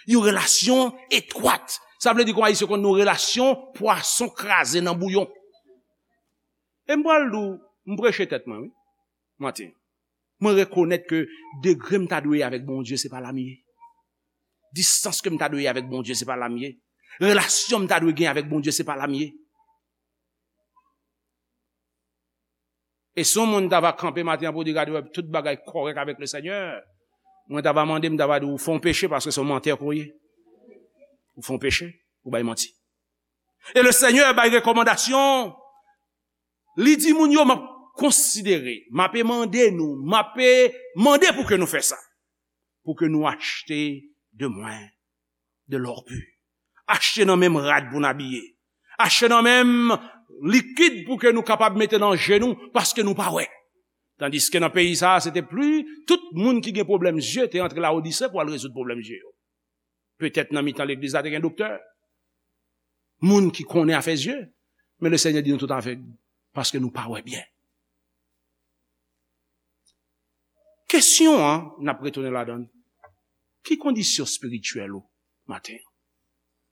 yon relasyon etwat. Sa vle di kon Ayisyen konn nan relasyon pwason kraze nan bouyon. E m pral di w, m preche tèt mwen, wi, maten. Mwen rekonèt ke degre m ta dwe ye avèk Bondye, se pa la m ye. Distans ke m ta dwe ye avèk Bondye, se pa la m ye. Relasyon m ta dwe gen avèk Bondye, se pa la m ye. E si yon moun ta va kanpe maten an pou di, "Gade, wè, tout bagay kòrèk avèk le Senyè," mwen ta va mande, m ta va di, "Ou fè yon peche paske se yon mantè ke w ye. Ou fè yon peche, ou bay manti." E le Senyè bay rekòmandasyon. Li di moun yo, "M ap konsidere, m ap mande nou, m ap mande pou ke nou fè sa, pou ke nou achte de mwen de l'or pur. Achte nan men m rad pou n abiye. Achte nan men m likid pou ke nou kapab mete nan je nou, paske nou pa wè." Tandiske nan peyi sa a, se te pli, tout moun ki gen pwoblèm zye te antre Lawodise pou al rezoud pwoblèm zye yo. Petèt nan mitan legliz la te gen doktè, moun ki konnen afè zye, men le Senyè di nou tout avèg, paske nou pa wè byen. Kesyon an, n ap retounen ladan l. Ki kondisyon espirityèl ou maten an?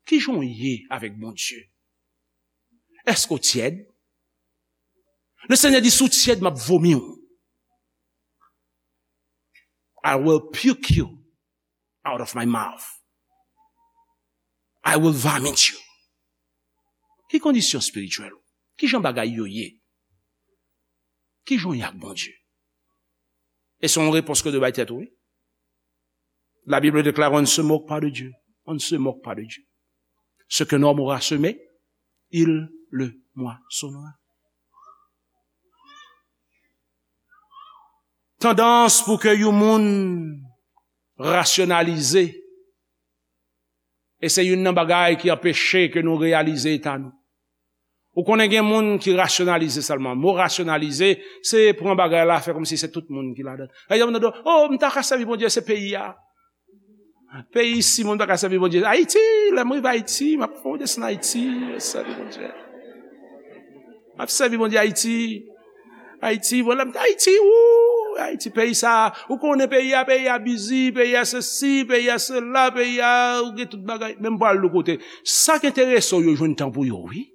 Ki jan w ye avèk Bondye? Èske w tyèd? Le Senyè di, "Si w tyèd, m ap vomi w. I will puke you out of my mouth. I will vomit you." Ki kondisyon espirityèl ou? Ki jan bagay yo ye? Ki jan w ye ak Bondye? E se yon repons ke w dwe bay tèt ou, wi. La Bible déclare, "On ne se moque pas de Dieu. On ne se moque pas de Dieu. Ce qu'un homme aura semé, il le moissonnera." Tandans pou ke yon moun rasyonalize, e se youn nan bagay ki anpeche ke nou reyalize eta nou. Ou konnen gen moun ki rasyonalize sèlman. Mo rasyonalize, se pran bagay la, fè kòmsi se tout moun ki ladan. Lè yon moun di, "Oh, m ta ka sèvi Bondye, se peyi a." Peyi isi, moun pa ka sèvi Bondye. Ayiti, lè m rive Ayiti, m ap fè yon desann Ayiti, sèvi Bondye. M ap sèvi Bondye Ayiti. Ayiti, bon, lè m te Ayiti, wou, Ayiti, peyi sa, ou konnen peyi a, peyi a bizi, peyi a sesi, peyi a sela, peyi a, ou gen tout bagay. Men m pral lòt kote. Sa k enterese w yo jwenn tan pou yo, wi.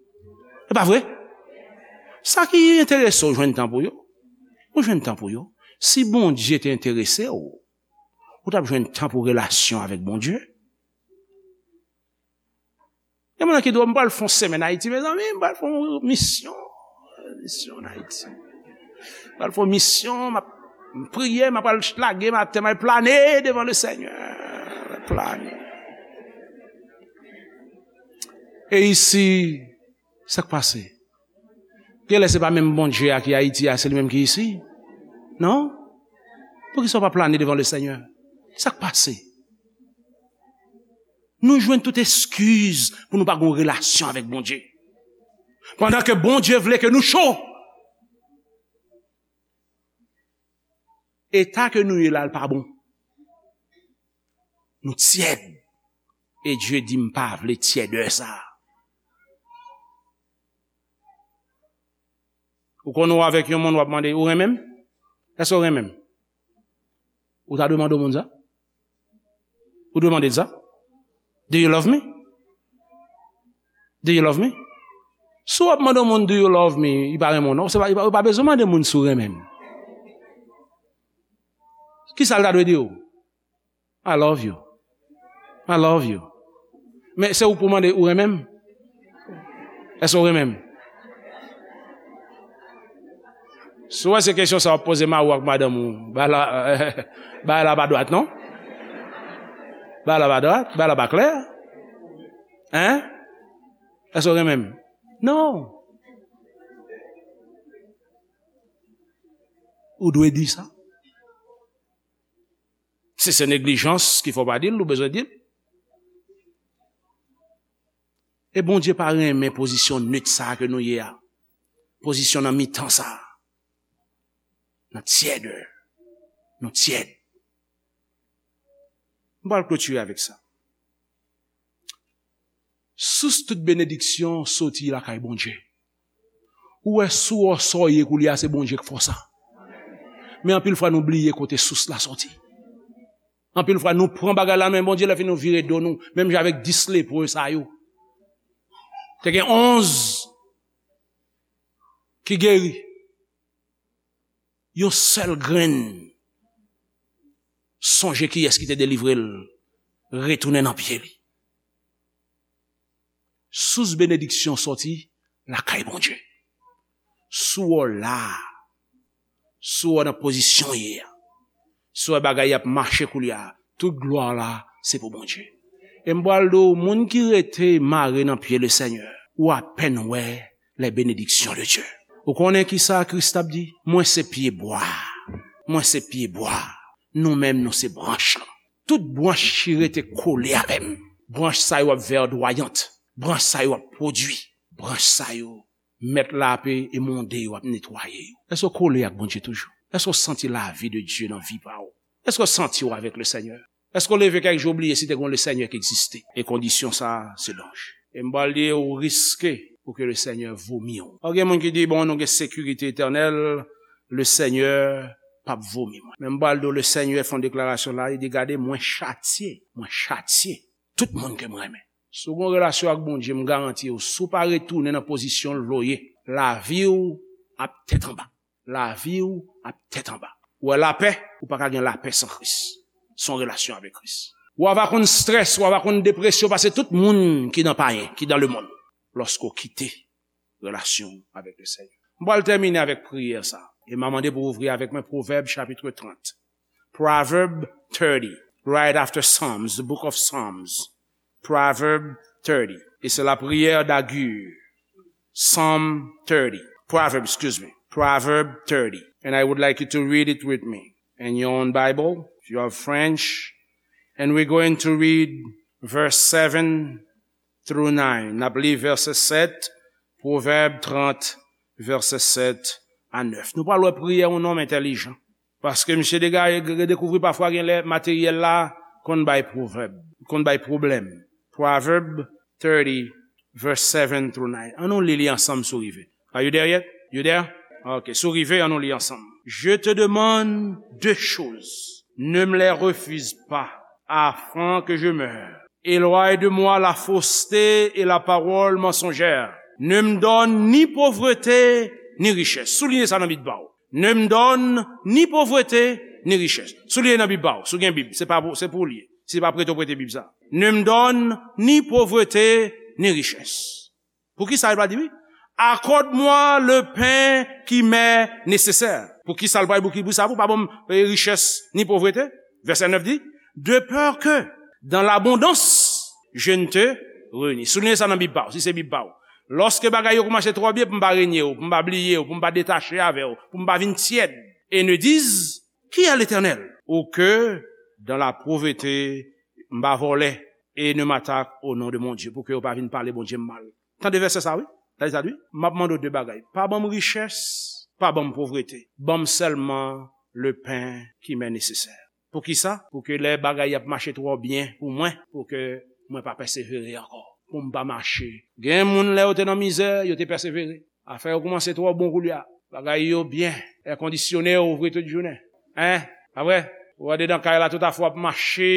E pa vre? Sa ki enterese w jwenn tan pou yo. Ou jwenn tan pou yo. Si Bondye te enterese w, ou t ap jwenn tan pou relasyon avèk Bondye. Gen moun ki di, "M pral fè yon semèn Ayiti, mezanmi, m pral fè yon misyon, misyon an Ayiti. M pral fè yon misyon, m ap priye, m ap al lage maten, m al plane devan le Senyè." M ap plane. E isi, sa k pase? Genlè se pa menm Bondye a ki Ayiti a, se li menm ki isi. Non? Poukisa w pa plane devan le Senyè? Sa k pase? Nou jwenn tout eskiz pou nou pa gen yon relasyon avèk Bondye. Pandan ke Bondye vle ke nou cho. Eta ke nou ye la, l pa bon. Nou tyèd. E Dye di, "M pa vle tyèdè sa." Ou konn ou avèk yon moun, w ap mande, "Ou renmen m? Èske w renmen m?" Ou ta dwe mande yon moun sa? Ou dwe mande l sa? "Do you love me? Do you love me?" Si w ap mande yon moun, "Do you love me?" Li pa renmen w, non. Se pa, li pa, ou pa bezwen mande moun si w renmen l. Kisa l ta dwe di w? "I love you. I love you." Men se ou pou mande, "Ou renmen m? Èske w renmen m?" Si w wè se kesyon sa w ap poze mari w ak madanm ou, bagay la, bagay la pa dwat, non? Bagay la pa dwat, bagay la pa klè. Hein? Èske w renmen m? Non. Ou dwe di sa. Si se neglijans ki fè w pa di l, ou bezwen di l. E Bondye pa renmen pozisyon net sa a ke nou ye a. Pozisyon nan mitan sa a. Nan tyèdè. Nou tyèd. M pral klotire avèk sa. Sous tout benediksyon soti lakay Bondye. Ou wè sou wò sa w ye koulye a, se Bondye k fè w sa. Men anpil fwa nou bliye kote sous la soti. Anpil fwa nou pran bagay la men Bondye, lè fini nou vire do nou, menm jan avèk dis lepre sa yo. Te gen onz ki geri. Yon sèl grenn. Sonje kiyès ki te delivre l, retounen nan pye li. Sous benediksyon soti lakay Bondye. Sou w la, sou w nan pozisyon w ye a, sou w bagay y ap mache koulye a, tout glwa la se pou Bondye. E m pral di w, moun ki rete mare nan pye le Senyè, ou apèn wè les bénédictions de Dieu. Ou konnen ki sa Kris t ap di? Mwen se pye bwa. Mwen se pye bwa. Nou menm, nou se branch lan. Tout branch ki rete kole avè m, branch sa yo ap vèdwayant. Branch sa yo ap pwodui. Branch sa yo, mèt la ape emonde yo, ap netwaye yo. Èske w kole ak Bondye toujou? Èske w santi lavi de Dye nan vi pa w? Èske w santi w avèk le Senyè? Èske w leve kèk jou w bliye si te gen yon le Senyè ki egziste? E kondisyon sa a, se danje. E m pral di w, ou riske pou ke le Senyè vomi w. Ou gen moun ki di, bon, nou gen sekirite etènèl, le Senyè p ap vomi mwen. Men m pral di w, le Senyè fè yon deklarasyon la, li di, gade, mwen chatye, mwen chatye tout moun ke m renmen. Si w gen yon relasyon ak Bondye, m garanti w, si w pa retounen nan pozisyon l vle w ye, lavi w ap tèt anba. Lavi w ap tèt anba. Ou wè lapè, ou pa ka gen lapè san Kris. San relasyon avèk Kris. Ou ava konn strès, ou ava konn depresyon, pase tout moun ki nan payen, ki nan lemonn. Lòske w kite relasyon w avèk le Senyè. M pral tèmine avèk priyè sa. E m a mande pou w ouvri avèk mwen Pwovèb chapit trant. Proverb thirty, right after Psalms, the book of Psalms. Proverb thirty. Et c'est la prière d'Agur. Psalm thirty. Proverb, excuse me. Proverb thirty. And I would like you to read it with me in your own Bible, if you have French. And we're going to read verse seven through nine. N ap li vèsè sèt, Pwovèb trant, vèsè sèt a nèf. Nou pral wè priyè yon nonm entèlijan. Paske misye dega-, dekouvri pafwa gen lè materyèl la konn bay pwovèb, konn bay pwoblèm. Proverb thirty, verse seven through nine. An nou li li ansanm si w rive. Are you there yet? You there? Ok, si w rive, an nou li ansanm. Je te demande deux choses. Ne me les refuse pas, afin que je meure. Éloigne de moi la fausseté et la parole mensongère. Ne me donne ni pauvreté ni richesse. Souliye sa nan Bib pa w. Ne me donne ni pauvreté ni richesse. Souliye nan Bib pa w. Si w gen Bib, se pa pou, se pou w li ye. Si pa prete w prete Bib sa. Ne me donne ni pauvreté ni richesse. Poukisa li pa di wi? Accorde-moi le pain qui m'est nécessaire. Poukisa l pa di pou ki, pou sa, pou pa ban m, eh, richès ni povrete? Vèsè nèf di, de peur que dans l'abondance, je ne te renie. Souliye sa nan Bib pa w, si se Bib pa w. Lòske bagay yo kòmanse twò byen, pou m pa renye w, pou m pa bliye w, pou m pa detache avè w, pou m pa vin tyèd. Et ne dise, qui est l'Éternel? Ou que dans la pauvreté, m pa vòlè, et ne m'attaque au nom de mon Dieu, pou ke yo pa vin pale Bondye m mal. Tande vèsè sa, wi. Tande sa, wi. M ap mande w de bagay. Pa ban m richès, pa ban m povrete. Ban m sèlman le pain qui m'est nécessaire. Poukisa? Pou ke lè bagay ap mache twò byen pou mwen, pou ke mwen pa pèsevere ankò. Pou m pa mache. Gen moun, lè yo te nan mizè, yo te pèsevere. Afè yo kòmanse twò bon koulye a. Bagay yo byen. Èkondisyone yo ouvri tout jounen. Hein? Pa vre? Ou andedan kay la, tout afè w ap mache.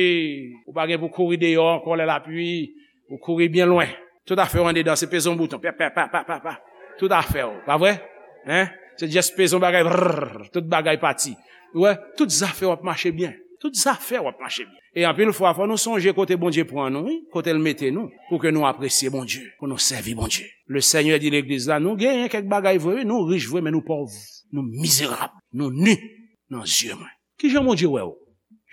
Ou pa gen pou kouri deyò ankò lè lapli. Ou kouri byen lwen. Tout afè w andedan, se peze yon bouton. Pa, pa, pa, pa, pa, pa. Tout afè w. Pa vre? Hein? Se just peze yon bagay. Brrr, tout bagay pati. Ou wè? Tout zafè w ap mache byen. Tout zafè w ap mache byen. E anpil fwa, fò nou sonje kote Bondye pran nou, wi, kote l mete nou, pou ke nou apresye Bondye, pou nou sèvi Bondye. Le Senyè di legliz la, nou genyen kèk bagay vre, wi, nou rich vre, men nou pòv, nou mizerab, nou ni nan zye mwen. Ki jan Bondye wè w?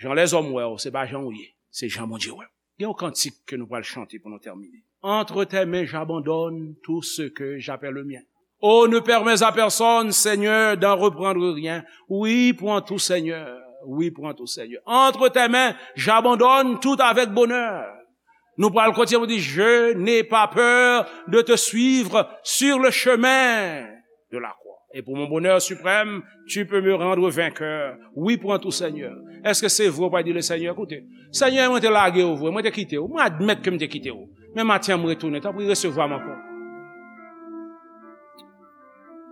Jan lèzòm wè w, se pa jan w ye, se jan Bondye wè w. Gen yon kantik ke nou pral chante pou nou tèmine. Entre tes mains, j'abandonne tout ce que j'appelle le mien. Oh, ne permets à personne, Seigneur, d'en reprendre rien. Oui, prends tout, Seigneur. Oui, prends tout, Seigneur. Entre tes mains, j'abandonne tout avec bonheur. Nou pral kontinye pou di, je n'ai pas peur de te suivre sur le chemin de la croix. Et pour mon bonheur suprême, tu peux me rendre vainqueur. Wi, pran tou, Senyè. Èske se vre w pral di le Senyè, koute, Senyè, mwen te lage w vre, mwen te kite w, mwen admèt ke m te kite w. Men maten an, m retounen, tanpri, resevwa m ankò.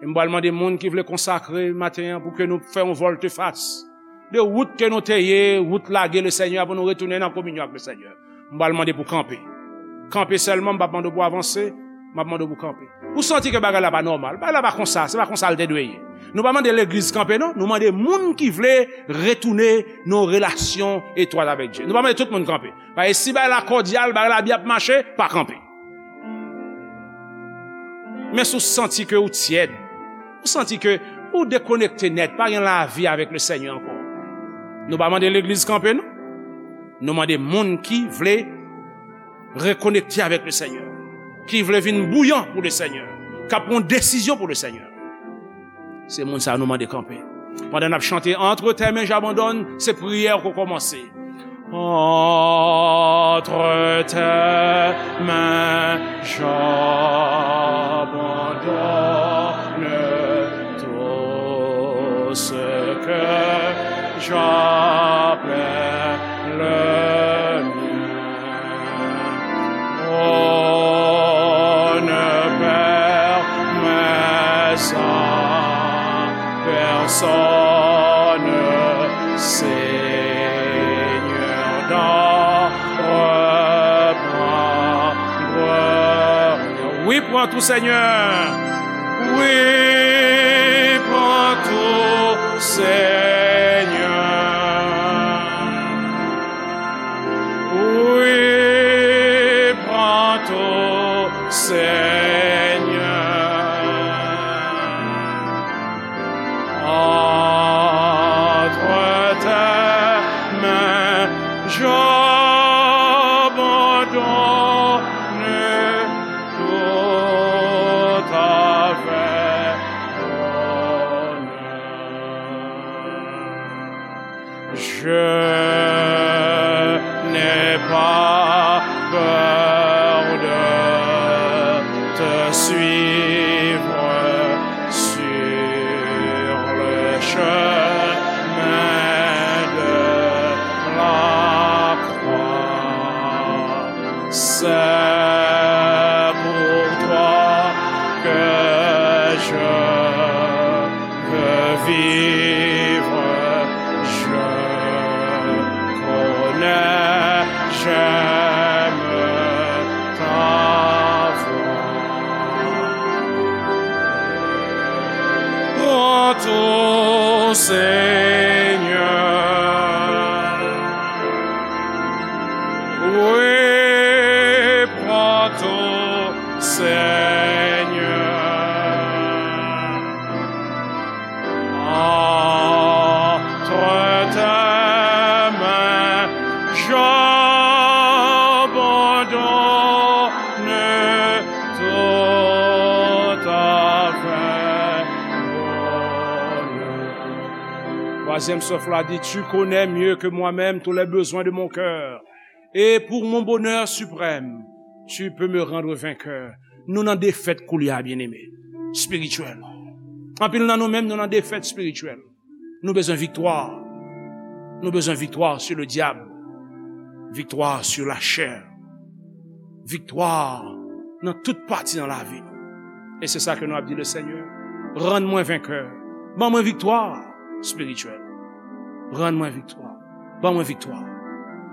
E m pral mande moun ki vle konsakre maten an pou ke nou fè yon vòltefas de wout ke nou te ye, wout lage le Senyè, pou nou retounen nan kominyon ak le Senyè. M pral mande pou kanpe. Kanpe sèlman, m p ap mande w pou avanse, m ap mande w pou kanpe. Ou santi ke bagay la pa nòmal, bagay la pa konsa, se pa konsa l te dwe ye. Nou pa mande legliz kanpe, non, nou mande moun ki vle retounen nan relasyon etwat avèk Dye. Nou pa mande tout moun kanpe. Paske si bagay la kòdyal, bagay la byen ap mache, pa kanpe. Men si w santi ke ou tyèd, ou santi ke ou dekonekte nèt, pa gen lavi avèk le Senyè ankò, nou pa mande legliz kanpe, non. Nou mande moun ki vle rekonekte avèk le Senyè, ki vle vin bouyan pou le Senyè, k ap pran desizyon pou le Senyè. Se moun sa a nou mande kanpe. Pandan n ap chante Entre tes mains j'abandonne, se priyè k ap kòmanse. Entre tes mains j'abandonne tout ce que j'appelle le mien. Oh, ne permets à personne, Seigneur, d'en reprendre rien. Oui, prends tout, Seigneur. Oui, prends tout, Seigneur. Oui, prends tout, Seigneur. Entre tes mains, j'abandonne tout avec bonheur. Je n'ai pas peur de te suivre sur le chemin de la croix. C'est pour toi que je veux vivre, je connais, j'aime ta voix. Prends tout, Seigneur. Oui, prends tout, Seigneur. Entre tes mains, j'abandonne tout avec bonheur. Twazyèm souf la di, Tu connais mieux que moi-même tous les besoins de mon cœur. Et pour mon bonheur suprême, tu peux me rendre vainqueur. Nou nan defèt koulye a, byeneme, espirityèl. Anpil nan nou menm, nou nan defèt espirityèl. Nou bezwen viktwa. Nou bezwen viktwa sou le dyab, viktwa sou lachè, viktwa nan tout pati nan lavi nou. E se sa ke nou ap di le Senyè, rann mwen venkè. Ban mwen viktwa espirityèl. Rann mwen viktwa. Ban mwen viktwa.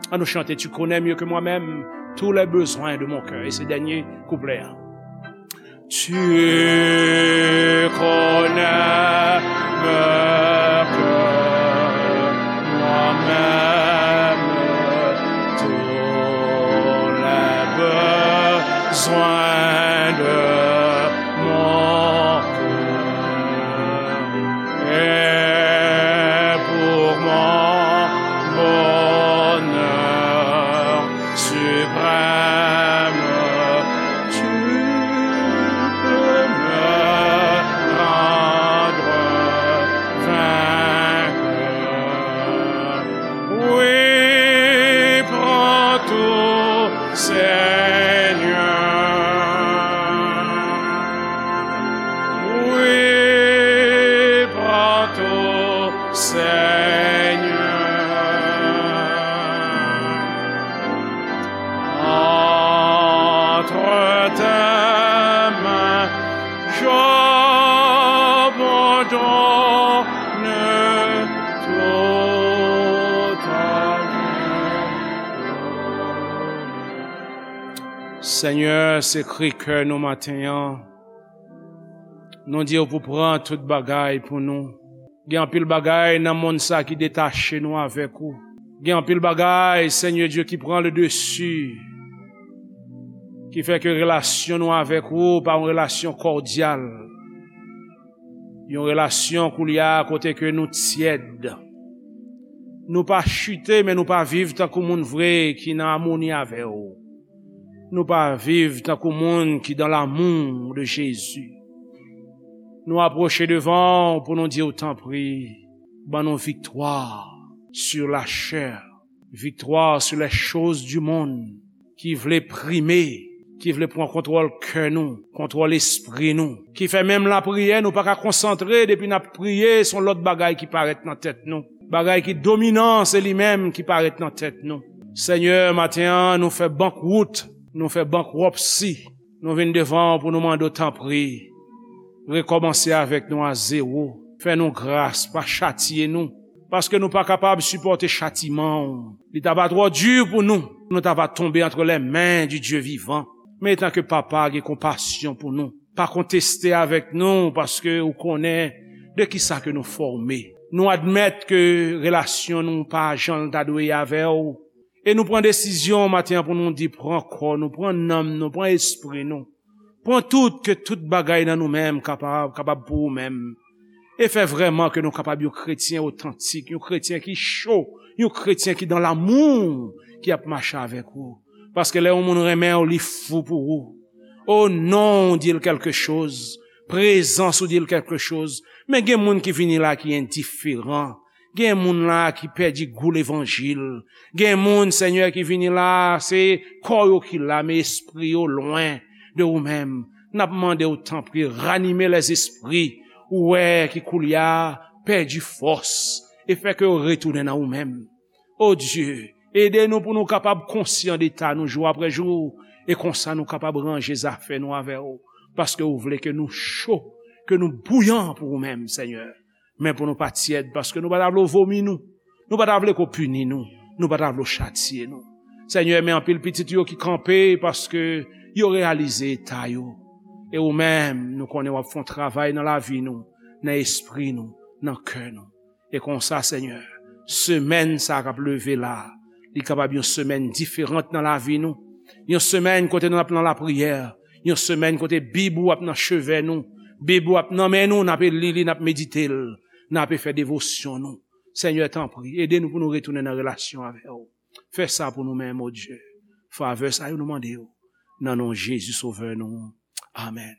An nou chante, Tu connais mieux que moi-même tous les besoins de mon cœur. E se dènye kouplè a. Tu connais mieux que moi-même tous les besoins de mon cœur. Et pour mon bonheur suprême, tu peux me rendre vainqueur. Oui, prends tout, Seigneur. Oui, Senyè, se kri kè nou maten an. Nou di w pou pran tout bagay pou nou. Gen anpil bagay nan monn sa ki detache nou avèk ou. Gen anpil bagay, Senyè Dye, ki pran le desi, ki fè ke relasyon nou avèk ou pa yon relasyon kòdyal. Yon relasyon koulye a kote ke nou tyèd. Nou pa chite, men nou pa viv tankou moun vre ki nan amoni avè w. Nou pa viv tankou moun ki dans l'amour de Jésus. Nou apwoche devan w pou nou di w, tanpri, ban nou viktwa sur la chair, viktwa sur les choses du monde, ki vle prime, ki vle pran kontwòl kè nou, kontwòl espri nou, ki fè menm lapriyè nou pa ka konsantre depi n ap priye, se yon lòt bagay ki parèt nan tèt nou. Bagay ki dominan, se li menm ki parèt nan tèt nou. Senyè, maten an, nou fè bankwout, nou fè bankwòpsi. Nou vin devan w pou nou mande w, tanpri, rekòmanse avèk nou a zewo. Fè nou gras, pa chatiye nou, paske nou pa kapab sipòte chatiman w. Li ta va twò di pou nou, nou ta va tonbe entre les mains du Dieu vivant. Men etan ke Papa gen konpasyon pou nou, pa konteste avèk nou, paske ou konnen de ki sa ke nou fòme. Nou admèt ke relasyon nou pa jan l ta dwe ye avè w. E nou pran desizyon maten an pou nou di, pran kò nou, pran nanm nou, pran espri nou. Pran tout, ke tout bagay nan nou menm kapab, kapab pou ou menm. E fè vrèman ke nou kapab yon kretyen otantik, yon kretyen ki cho, yon kretyen ki dans l'amour, ki ap mache avèk ou. Paske lè yon moun renmen w, li fou pou ou. O non w di l kèlke choz, prezans ou di l kèlke choz. Men gen moun ki vini la ki endiferan. Gen moun la ki pèdi gou levanjil. Gen moun, Senyè, ki vini la, se kò yo ki la, men espri yo lwen de ou menm. N ap mande w, tanpri, ranime lèzespri ou wè ki koulye a pèdi fòs e fè ke yo retounen nan ou menm. O Dye, ede nou pou nou kapab konsyan de eta nou jou apre jou, e konsa nou kapab ranje zafè nou avè w, paske ou vle ke nou cho, ke nou bouyan pou ou menm, Senyè. Men pou nou pa tyèd, paske nou pa ta vle w vomi nou, nou pa ta vle ke w pini nou, nou pa ta vle w chatiye nou. Senyè, men anpil pitit yo ki kanpe paske yo reyalize eta yo. E ou menm, nou konnen w ap fè yon travay nan lavi nou, nan espri nou, nan kè nou. E konsa, Senyè, semèn sa k ap leve la, li kapab yon semèn diferan nan lavi nou. Yon semèn kote nou ap nan lapriyè. Yon semèn kote Bib ou ap nan cheve nou. Bib ou ap nan men nou, n ape li li, n ap medite l, n ape fè devosyon nou. Senyè, tanpri, ede nou pou nou retounen nan relasyon avè w. Fè sa pou nou menm, o Dye. Favè sa yo nou mande w. Nan non Jezi, Sovè nou. Amèn.